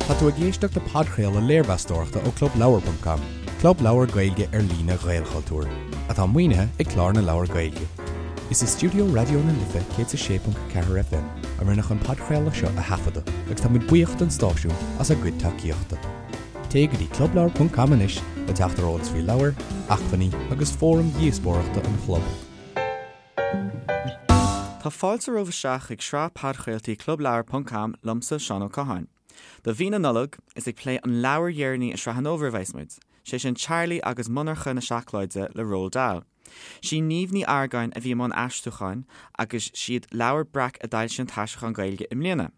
Tá tú ag éisteacht le podchraoladh léirmheastóireachta ó Clubleabhar ponc com, club leabhar Gaeilge ar líne Ghaelchultúir, atá maoinithe ag Clár na Leabhar Gaeilge. Is i stiúideo Raidió na Life 106.4 FM a rinneadh an podchraoladh seo a thaifeadadh agus tá muid buíoch don stáisiún as a gcuid tacaíochta. Téigh go dtí clubleabhar ponc com anois le teacht ar eolas faoi leabhair, acmhainní agus fóraim dhíospóireachta an chlub. Tá fáilte romhaibh isteach chuig sraith podchraoltaí Clubleabhar ponc com liomsa, Seán Ó Catháin. Do mhí na Nollag, is ag plé an leabhair dheireanaí i sraith an fhómhair a bheas muid, sé sin Charlie agus Monarcha na Seacláide le Roald Dahl. Sí Niamh Ní Argáin a bhí i mbun aistriúcháin agus siad Leabhar Breac a d'fhoilsigh an t-aistriúchán Gaeilge i mbliana.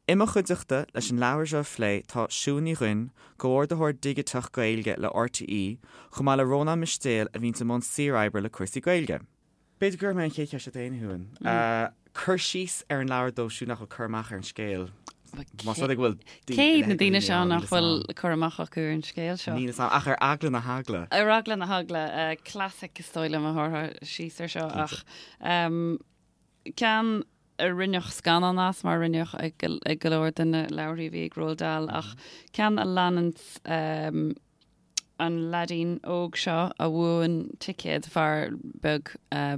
I mo chuideachta leis an leabhar seo a phlé tá Siún Ní Dhuinn, Comhordaitheoir Digiteach Gaeilge le RTÉ, chomh maith le Rónán Mistéil a bhíonns i mbun saoroibre le cúrsaí Gaeilge. B'fhéidir go gcuirfidh mé an chéad cheist ort féin, a Shiúin. Cur síos ar an leabhar dóibh siúd nach bhfuil cur amach ar an scéal. Más rud é go bhfuil Cé hiad na daoine seo nach bhfuil cur amach acu ar an scéal seo? Níl 'fhios a'm, ach ar eagla na heagla. Ar eagla na heagla, classic is dóigh liom a thabharfá síos ar seo ach ceann a rinneadh scannán as mar a rinneadh ag go leor de na leabharthaí a bhí ag Roald Dahl ach ceann a leanann an leaidín óg seo a bhuann ticéad, fear beag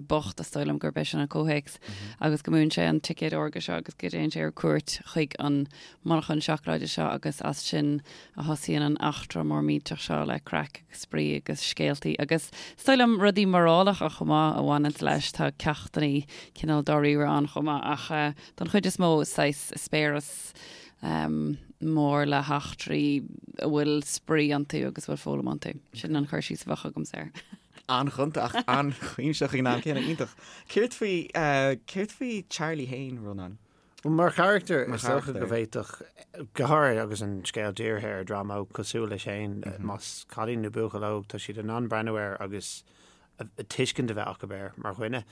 bocht is dóigh liom gurb é sin an comhthéacs, agus go mbuann sé an ticéad órga seo agus go dtéann sé ar cuairt chuig an monarchan seacláide seo agus as sin a thosaíonn an eachtra mór millteach seo le craic agus spraoi agus scéaltaí agus is dóigh liom rudaí morálacha chomh maith a bhaineanns leis. Tá ceachtannaí cineál dáiríre ann chomh maith ach don chuid is mó is saghas eispéireas mór le heachtraí a bhfuil spraoi iontu agus a bhfuil foghlaim iontu. Sin an cur síos a bheadh agamsa air. An-ghonta ach an-chuimsitheach ag an am céanna. Iontach. Céard faoi, céard faoi Charlie féin, Rónán? Bhuel, mar charachtar, is dócha go bhféadfadh, go háirithe agus an scéal dírithe ar dhream óg cosúil leis féin, más cailín nó buachaill óg, tá siad in ann breathnú air agus tuiscint a bheith acu air mar dhuine.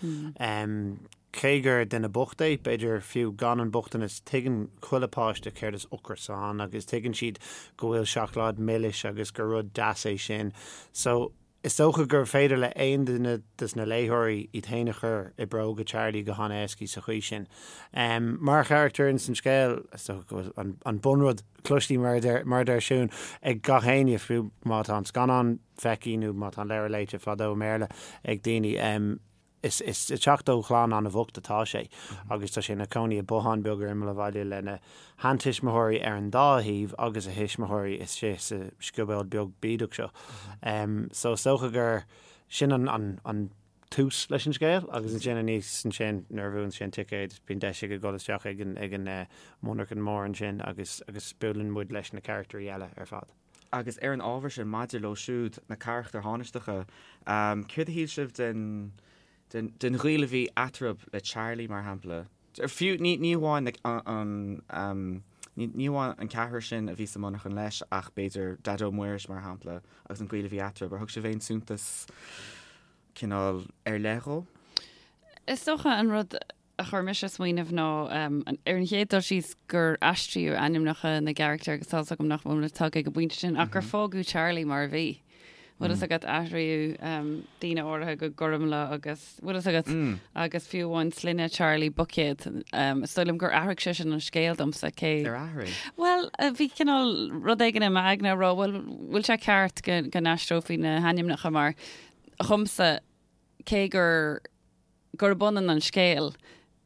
Cé gur duine bocht é, b'fhéidir fiú gan an bochtanas, tuigeann chuile páiste céard is ocras ann agus tuigeann siad go bhfuil seacláid milis agus gur rud deas é sin. So, Is dócha gur féidir le aon duine des na léitheoirí iad féin a chur i bróga Charlie go han-éascaí sa chaoi sin. Mar charachtar ins an scéal, is dócha go bhfuil an bunrud cloistí, mar a deir Siún, ag gach éinne, fiú má tá an scannán feicthe nó má tá an leabhar léite fadó i mBéarla ag daoine. Is ag teacht ó chlann an-bhocht atá sé agus tá sé ina chónaí i bothán beag ar imeall an bhaile lena sheantuismitheoirí ar an dá thaobh agus a thuismitheoirí istigh sa scioból beag bídeach seo. So is dócha gur sin an tús leis an scéal agus ansin aníos ansin nuair a bhuann sé an ticéad bíonn deis aige dul isteach ag an monarchan mór ansin agus agus buaileann muid leis na carachtarí eile ar fad. Agus ar an ábhar sin, maidir leo siúd, na carachtair thánaisteacha, céard a shíl sibh den, den, den ghaol a bhí eatarthu le Charlie, mar shampla? Fiú, ní, ní amháin like, an, an, ní, ní amháin an ceathrar sin a bhí sa monarchan leis, ach b'fhéidir Daideo Muiris, mar shampla, agus an gaol a bhí eatarthu. Ar thug sibh aon suntas cineál ar leith dhó? Is dócha an rud a chuir mise ag smaoineamh ná ar an chéad dul síos gur aistríodh ainmneacha na gcarachtar agus tá's agam nach bhfuil muid tagtha ag an bpointe sin ach gur fágadh Charlie mar a bhí. Bhfuil fhios agat athraíodh daoine áirithe go Gormfhlaith agus bhfuil fhios agat agus fiú amháin sloinne Charlie Buicéad. Is dóigh liom gur athraigh sé sin an scéal domsa cé. Ar athraigh? Bhuel bhí cineál rud éigin i m'aigne a rá bhuel bhfuil sé ceart go go n-aistreofaí na hainmneacha mar dhomsa cé gur gurb ionann an scéal.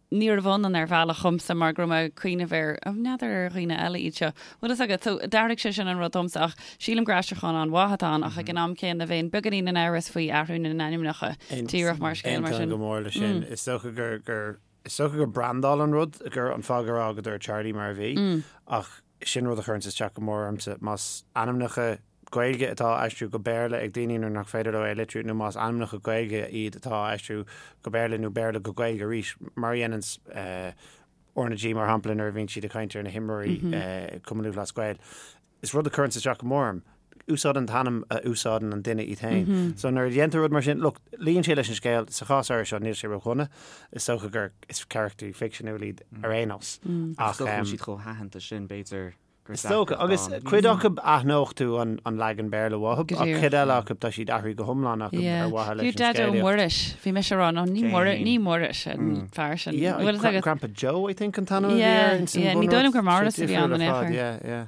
Níorbh ionann ar bhealach dhomsa mar go raibh mé ag cuimhneamh ar, oh, n'fheadar ar dhaoine eile iad seo. Bhfuil fhios agat, so d'athraigh sé sin an rud domsa ach sílim gur aistriúchán an-mhaith atá ann ach ag an am céanna bheinn beagáinín in amhras faoi athrú na n-ainmneacha díreach mar scéal mar sin. Aontaím go mór leis sin. Is dócha gur, gur, is dócha gur brandáil an rud, gur an fáth gur fhágadar Charlie mar a bhí ach sin rud a chuireanns isteach go mór ormsa. Más ainmneacha Gaeilge atá á aistriú go Béarla ag daoine nuair nach féidir leo é a litriú nó más ainmneacha Gaeilge iad atá á aistriú go Béarla nó Béarla go Gaeilge arís, mar a dhéananns RnaG mar shampla nuair a bhíonn siad ag caint ar na himreoirí Cumann Lúthchleas Gael. Is rud a chuireanns isteach go mór orm. Úsáid an t-ainm a úsáideann an duine iad féin. So nuair a dhéantar rud mar sin, look, luíonn sé leis an scéal, sa chás áirithe seo níl sé ródhona, is dócha gur is carachtarí ficseanúil iad ar aon nós. Ach is dócha go bhfuil siad chomh haitheanta sin, b'fhéidir gur Is dócha, agus cuid acu aithneodh tú an leagan Béarla uathu, ach cuid eile acu tá siad athraithe go hiomlán acu ar mhaithe leis an Fiú Daideo scéalaíocht. Muiris, bhí mise ag rá, no, ní Muiris, ní Muiris an fear sin. Yeah, Bhfuil fhios agat? Grandpa Joe, I think, an t-ainm a bhí air Yeah, ins an yeah, ní bunrud. dóigh liom gur Sé Maurice a bhí difriúil ann ar in aon fad, chor. yeah, yeah.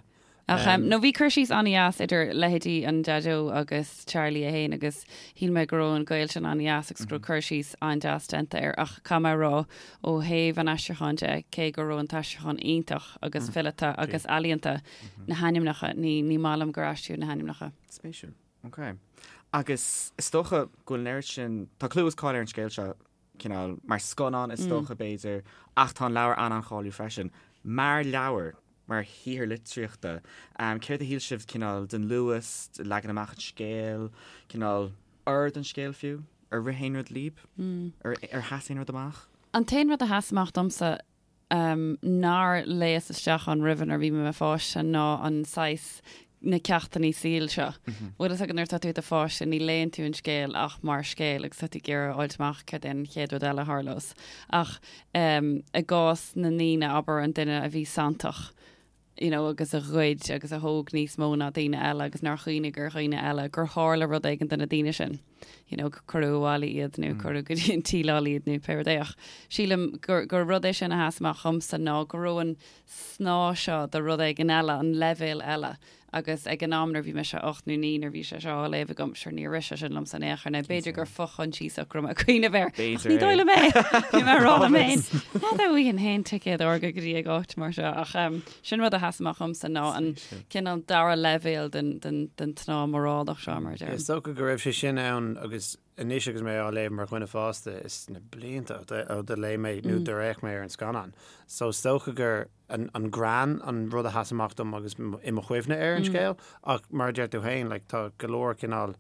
Ach nó bhí cur síos an-dheas idir leithéidí an Daideo agus Charlie é féin agus shíl mé go raibh an gaol sin an-dheas agus go raibh cur síos an-deas déanta air ach caithfidh mé a rá ó thaobh an aistriúcháin de, cé go raibh an t-aistriúchán iontach agus fileata agus ealaíonta, na hainmneacha, ní ní maith liom gur aistríodh na hainmneacha. Spéisiúil. Ok. Agus is dócha go bhfuil an oiread sin, tá clú is cáil ar an scéal seo, cineál, mar scannán is dócha b'fhéidir, ach tá an leabhar an-an-cháiliúil freisin. Mar leabhar, mar shaothar litríochta, céard a shíl sibh cineál den luas, de leagan amach an scéil, cineál ord an scéil fiú? Ar rith aon rud libh? Ar sheas aon rud amach? An t-aon rud a sheas amach domsa nár léas isteach ann roimhe nuair a bhí mé i mo pháiste ná an saghas na ceachtanna saoil seo. Bhfuil fhios agat nuair atá tú i do pháiste ní léann tú an scéal ach mar scéal agus tá tú ag iarraidh a fháilt amach céard é an chéad rud eile a tharlós. Ach i gcás na ndaoine, abair an duine a bhí santach, you know, agus a ghoid agus a thóg níos mó ná daoine eile agus nár chuimhnigh ar dhaoine eile, gur tharla rud éigin do na daoine sin, you know, cuireadh abhaile iad nó cuireadh go dtí an tsíleáil iad nó pé rud é. Ach sílim gur, gur rud é sin a sheas amach dhomsa ná go raibh an snáth seo de rud éigin eile, an leibhéal eile, agus ag an am nuair a bhí mise 8 nó 9 nuair a bhí sé seo á léamh agam, sure níor rith sé sin liomsa in aon chor, nó b'fhéidir gur fo-choinsiasach go raibh mé ag cuimhneamh air, ach ní dóigh liom é! Bhí mé ag rá liom féin, n'fheadar an bhfaighinn féin ticéad órga go dtí ag áit mar seo, ach sin rud a sheas amach dhomsa ná an cineál dara leibhéal den, den, den tsnáth morálach seo, mar a deirim. Is dócha go raibh sé sin ann agus anois agus mé á léamh mar dhuine fásta, is na blianta ó do léigh mé nó do d'fhéach mé ar an scannán. So is dócha gur an greann an rud a sheas amach dom agus i mo chuimhne ar an scéal ach mar a deir tú féin, like, tá go leor cineál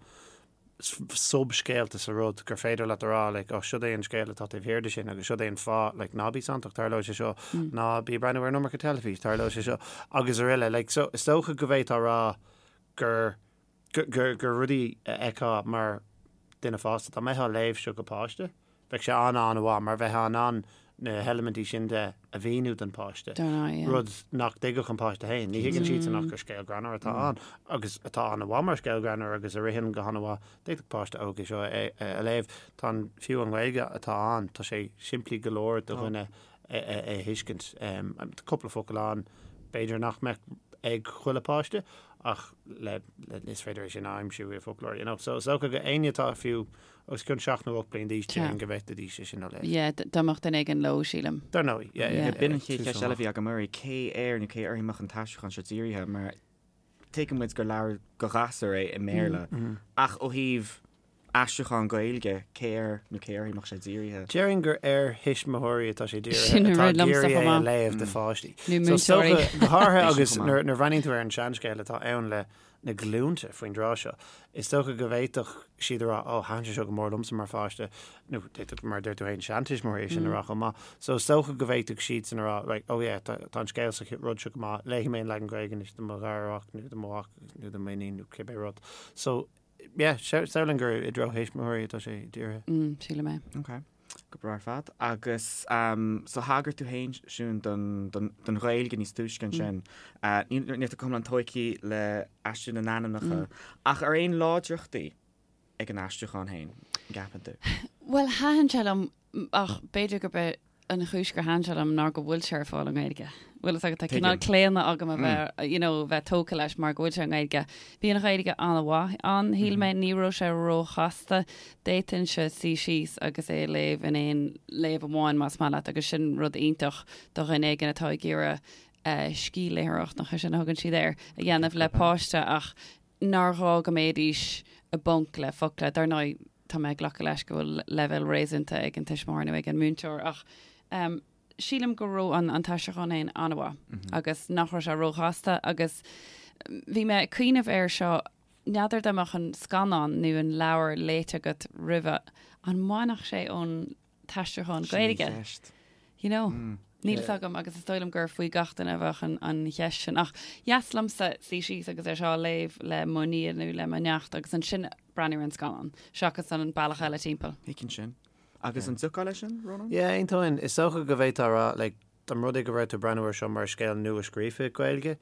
sub-scéalta sa rud gur féidir leat a rá like, oh, siod é an scéal atá taobh thiar de sin agus siod é an fáth, like, ná bí santach, tarlóidh sé seo, ná bí ag breathnú ar an iomarca teilifís, tarlóidh sé seo, agus araile. Like, so is dócha go bhféadfá a rá gur gur gur rudaí a fheicfeá mar duine fásta. Dá mbeifeá ag léamh seo go páiste, bheadh sé an-an-mhaith mar bheifeá in ann na heilimintí sin de a mhíniú don pháiste, rud nach dtuigfeadh an páiste féin. Ní thuigeann siadsan ach gur scéal greannmhar atá ann agus atá an-mhaith mar scéal greannmhar agus a ritheann go han-mhaith. D'fhéadfadh páiste óg é seo a léamh. Tá an, fiú an Ghaeilge atá ann, tá sé simplí go leor do dhuine é a thuiscint. Tá cúpla focal ann b'fhéidir nach mbeadh ag chuile páiste ach le, le, is féidir é sin a aimsiú i bhfoclóir, you know. So is dócha go éinne atá fiú os cionn 7 nó 8 bliain d'aois déarfainn go bhféadfaidís é sin a léamh. Yeah, dá mbeadh duine éigin leo, sílim. Dar ndóigh, yeah, yeah. B'in an chéad cheist eile a bhí agam oraibh, cé air nó cé uirthi a mbeadh an t-aistriúchán seo dírithe, mar tuigeann muid gur leabhar do ghasúir é i mBéarla, ach ó thaobh aistriúchán Gaeilge, cé air nó cé uirthi a mbeadh sé dírithe? Déarfainn gur ar thuismitheoirí atá sé dírithe, atá ag iarraidh é a léamh do pháistí. Nó múinteoirí. Go háirithe agus nuair a bhreathnaíonn tú ar an seanscéal atá ann le na glúnta faoin dtráth seo, is dócha go bhféadfadh siad a rá, 'Ó, thaitin sé seo go mór liomsa mar pháiste', nó d'fhéadfadh, mar a deir tú féin, seantuismitheoirí é sin a rá chomh maith. So is dócha go bhféadfadh siadsan a rá, 'Right, oh yeah, tá an scéal sa rud seo go maith, léifidh mé an leagan Gaeilge anois do mo gharmhac nó do mo mhac nó do m'iníon nó cibé rud. So Yeah, samhlaím gur i dtreo thuismitheoirí atá sé dírithe. Mm, sílim é. Ok. Go breá ar fad. Agus um, so thagair tú féin, Siún, don, don, don Ghaeilge níos túisce ansin. Mm. Uh, níl, níl tú go hiomlán tógtha le aistriú na n-ainmneacha. Mm. Ach ar aon láidreachtaí ag an aistriúchán féin, an gceapann tú? Bhuel, thaitin sé liom ach b'fhéidir gurb é an chúis gur thaitin sé liom ná go bhfuil sé ar fáil i nGaeilge. Bhfuil fhios agat, tá cineál claonadh agam a bheith, you know, bheith tógtha leis mar go bhfuil sé i nGaeilge. Bhí an Ghaeilge an-mhaith ann, shíl mé, ní raibh sé róchasta. D'fhéadfainnse suí síos agus é a léamh in aon léamh amháin más maith leat agus sin rud iontach do dhuine éigin atá ag iarraidh scíthléitheoireacht, nach é sin a thugann siad air, a dhéanamh le páiste ach nár ghá go mbeidís i bponc le focla. Dar ndóigh, tá mé ag glacadh leis go bhfuil leibhéal réasúnta ag an tuismitheoir nó ag an múinteoir ach sílim go raibh an an t-aistriúchán féin an-mhaith agus nach raibh sé róchasta agus bhí mé ag cuimhneamh air seo, n'fheadar dá mbeadh an scannán nó an leabhar léite agat roimhe, an mbainfeadh sé ón t-aistriúchán Gaeilge. Sin an cheist. You know? Níl fhios agam agus is dóigh liom gur faoi gach duine a bheadh an, an cheist sin. Ach dheas liomsa suí síos agus é seo a léamh le mo nia nó le mo neacht agus ansin breathnú ar an scannán, seachas an bealach eile timpeall. Thuigfinn sin. Agus an dtiocfá leis sin, Rónán? Yeah, aontóinn. Is dócha go bhféadfá a rá, like, dá mba rud é go raibh tú ag breathnú air seo mar scéal nua-scríofa Gaeilge,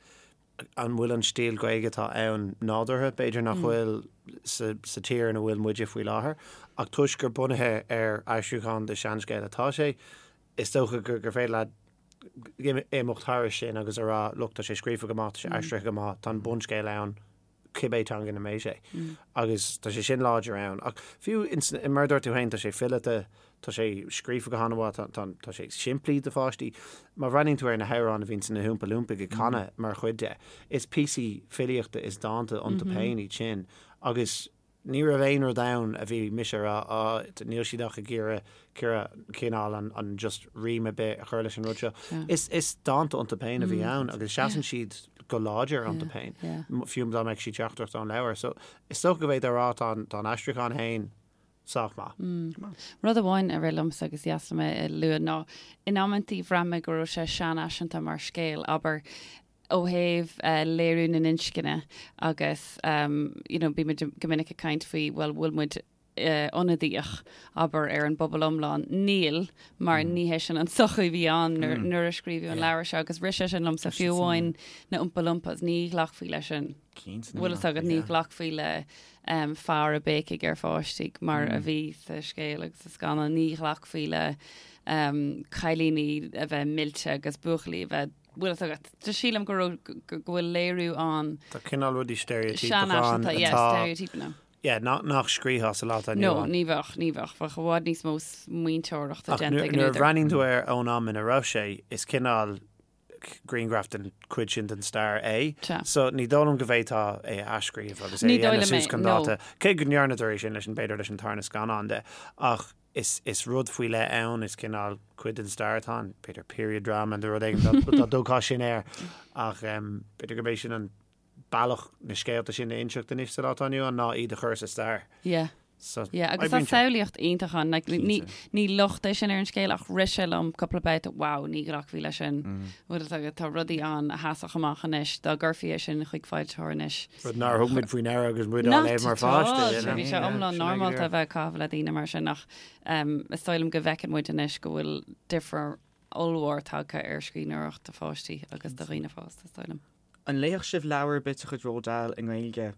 an bhfuil an stíl Ghaeilge atá ann nádúrtha? B'fhéidir nach bhfuil sa sa tír ina bhfuil muide faoi láthair, ach toisc gur bunaithe ar aistriúchán de seanscéal atá sé, is dócha gur gur féidir leat imeacht thairis sin agus a rá, look, tá sé scríofa go maith, tá sé aistrithe go maith, tá an bunscéal ann, cibé teanga ina mbeidh sé. Agus tá sé sin láidir ann. Ach fiú, mar a dúirt tú féin, tá sé fileata, tá sé scríofa go han-mhaith, tá, tá, tá sé simplí do pháistí. Má bhreathnaíonn tú ar na hamhráin a bhíonn na hOompa Loompaigh ag canadh mar chuid de, is píosaí filíochta is dánta iontu féin iad sin. Agus Ní raibh aon rud ann a bhí mise a rá, á, níl siad ach ag iarraidh cineál an, an just rím ar bith a chur leis an rud seo. Is, is dánta iontu féin a bhí ann agus seasann siad go láidir iontu féin, fiú dá mbeadh siad seachtrach ón leabhar. So, is dócha go bhféadfá a rá tá an, tá an aistriúchán féin sách maith. Rud amháin a rith liomsa agus is deas liom é a lua ná in amantaí bhraith mé go raibh sé seanfhaiseanta mar scéal, abair, ó thaobh léiriú na n-inscne agus you know bímid go minic ag caint faoi bhuel bhfuil muid ionadaíoch abair ar an bpobal iomlán. Níl mar ní hé sin an tsochaí a bhí ann nuair a scríobhadh an leabhar seo agus rith sé sin liomsa fiú amháin na Oompa Loompas ní ghlacfaí leis sin. Bhfuil fhios agat ní ghlacfaí le fear ag béicigh ar pháistí mar a bhí sa scéal agus sa scannán, ní ghlacfaí le cailíní a bheith millte agus buachaillí a bheith bhfuil fhios agat. Just sílim go raibh, go bhfuil léiriú ann. Tá cineál rudaí steiréitíopacha ann atá. Yeah, steiréitípeanna. Yeah, nach scríofá sa lá atá inniu ann. No, ní bheadh, ní bheadh. Bheadh i bhfad níos mó smaointeoireachta déanta ag an údar. Ach nuair a bhreathnaíonn tú air ón am ina raibh sé, is cineál grianghraf den chuid sin den stair é. So ní dóigh liom go bhféadfá é a athscríobh agus é a dhéanamh suas chun dáta. Cé go ndearnadar é sin leis an, b'fhéidir leis an tarna scannán de. Ach Is is rud faoi leith ann, is cineál cuid den stair atá ann, b'fhéidir period drama nó rud éigin dá dtugfá sin air ach b'fhéidir gurb é sin an bealach na scéalta sin a inseacht anois sa lá atá inniu ann ná iad a chur sa stair. Yeah. So, Yeah, agus tá samhlaíocht iontach ann. Like, ní, ní locht é sin ar an scéal ach rith sé liom cúpla babhta, wow, ní ghlacfaí leis sin. Bhfuil fhios agat, tá rudaí ann a sheasfadh amach anois, dá gcuirfí é sin chuig foilsitheoir anois. Rud nár thug muid faoi ndeara agus muid á léamh mar pháiste. Bhí sé iomlán normálta a bheith ag caitheamh le daoine mar sin ach is dóigh liom go bhfeiceann muid anois go bhfuil difear ollmhór tagtha ar scríbhneoireacht do pháistí agus do dhaoine fásta, is dóigh liom. An léifeadh sibh leabhar ar bith de chuid Roald Dahl i nGaeilge?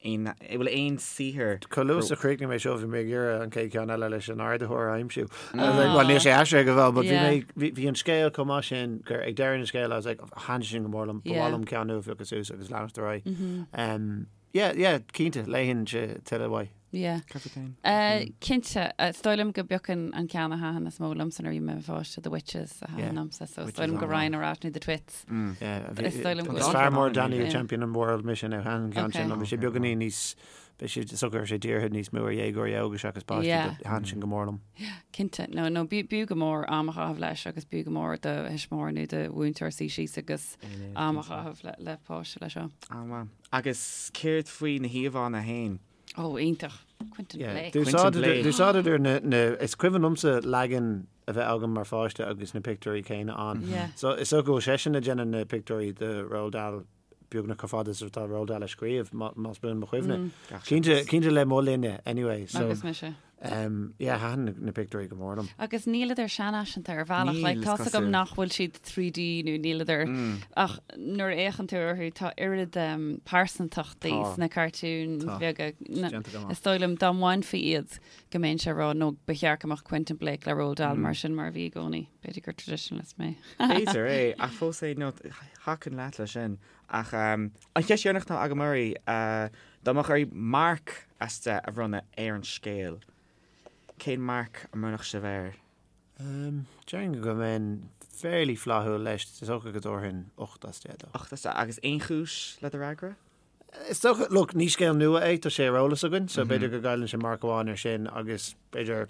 Aon, bhfuil aon saothar. Chomh luath is a chríochnaigh mé seo bhí mé ag iarraidh an chéad cheann eile leis an ardaitheoir a aimsiú. Bhuel níl sé aistrithe go fóill but bhí mé, bhí, bhí an scéal chomh maith sin gur ag deireadh an scéil I was like thaitin sin go mór liom, ba mhaith liom ceann nua a phiocadh suas agus leanacht ar aghaidh. Um, yeah, yeah, cinnte, léifinnse tuilleadh uaidh. Yeah. Cad fút féin? Uh, cinnte, uh, is dóigh liom go bpiocfainn an ceann a thaitin is mó liomsa nuair a bhí mé i mo pháiste, The Witches a thaitin Yeah. liomsa, so is Witches dóigh liom go an-mhaith. raghainn ar ais nó The Twits. Yeah, bhí- Is dóigh liom go Is bhfuil- fearr mór Danny Yeah. Champion an World mise nó thaitin an ceann sin Okay. liom. Bhí sé beagáinín níos Bhí sé is dócha go raibh sé dírithe níos mó ar dhéagóirí óga seachas páistí Yeah. but thaitin sin go mór liom. Cinnte. No, no, b'fhiú go mór am a chaitheamh leis agus b'fhiú go mór do thuismitheoir nó do mhúinteoir suí síos agus am a chaitheamh le, le páiste leis seo. An-mhaith. Agus céard faoi na híomhánna féin? Ó, iontach. Quentin Yeah. Blake. Quentin Blake. D'úsáideadar na, na, is cuimhin liomsa leagan a bheith agam mar pháiste agus na pictiúirí céanna ann. Yeah. So is dócha go bhfuil seisean ag déanamh na pictiúirí do Roald Dahl beagnach chomh fada is atá Roald Dahl ag scríobh, más buan mo chuimhne. Cinnte, cinnte le mo linne, anyway. So, Agus mise. Um, yeah, thaitin na pictiúirí go mór liom. Agus níleadar seanfhaiseanta ar bhealach. Níl, Like, is tá's agam cosúil. nach bhfuil siad 3D nó níleadar ach nuair a fhéachann tú orthu tá oiread um, pearsantachtaí Tá. sna cartúin Tá. bheaga. Na- Déanta go maith. Is dóigh liom dá mbainfí iad go mbeinnse ag rá nó ba cheart go mbeadh Quentin Blake le Roald Dahl mar sin mar a bhí i gcónaí. B'fhéidir gur traditionalist mé. B'fhéidir é, ach fós é, nó thiocfainn leat leis sin. Ach um, an cheist dheireanach atá agam oraibh, uh, dá mbeadh oraibh marc as 10 a bhronnadh ar an scéal, cén marc a mbronnfadh sibh air? Um, déarfainn go mbeinn fairly flaithiúil leis, is dócha go dtabharfainn 8 as 10 dó. 8 as 10. Agus aon chúis le do fhreagra? Is dócha, look, ní scéal nua é, tá sé ar eolas againn, so b'fhéidir go gcailleann sé marc amháin ar sin agus b'fhéidir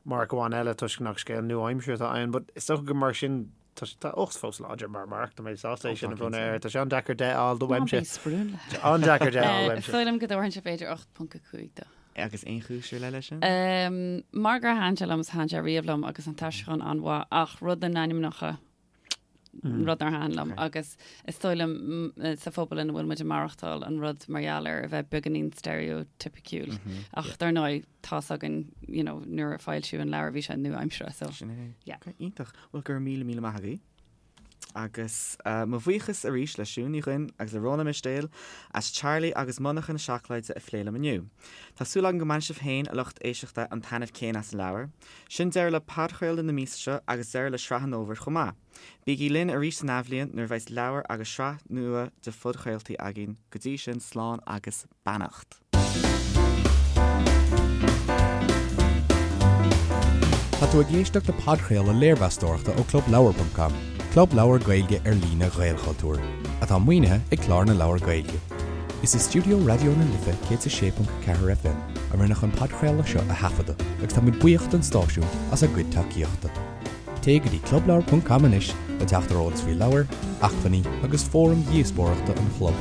marc amháin eile toisc nach scéal nua-aimseartha atá ann, but is dócha go mar sin, tá, tá 8 fós láidir mar marc, tá mé sásta é sin a bhronnadh air, tá sé an-deacair 10 a fháil do uaimse. Ná bí sprúnla. Tá an-deacair 10 a fháil Is uaimse. dóigh liom go dtabharfainnse b'fhéidir 8.5 dó. Agus aon chúis ar leith leis sin? Mar gur thaitin sé liom is thaitin sé riamh liom agus an t-aistriúchán an-mhaith ach rud na n-ainmneacha, rud nár thaitin liom agus is dóigh liom sa phobal ina bhfuil muid ag maireachtáil an rud mar gheall air a bheith beagáinín stereotypiciúil ach dar ndóigh tá's againn you know nuair a foilsíodh an leabhar bhí sé nua-aimseartha so Sin é. yeah. Okay, iontach. Bhuel go raibh míle míle maith agaibh. Agus mo bhuíochas arís le Siún Ní Dhuinn agus le Rónán Mistéil as Charlie agus Monarcha na Seacláide a phlé liom inniu. Tá súil agam go mbainfidh sibh féin, a lucht éisteachta, an taitneamh céanna as an leabhar. Sin deireadh le podchraoladh na míosa seo agus deireadh le sraith an fhómhair chomh maith. Bígí linn arís san athbhliain nuair a bheas leabhar agus sraith nua de phodchraoltaí againn. Go dtí sin, slán agus beannacht. Tá tú ag éisteacht le podchraoladh léirmheastóireachta ó ClubLeabhar.com, club leabhar Gaeilge ar líne Ghaelchultúir, atá maoinithe ag Clár na Leabhar Gaeilge. Is i stiúideo Raidió na Life 106.4 FM a rinneadh an podchraoladh seo a thaifeadadh agus táimid buíoch don stáisiún as a gcuid tacaíochta. Téigh go dtí clubleabhar.com anois le teacht ar eolas faoi leabhair, acmhainní agus fóraim dhíospóireachta an chlub.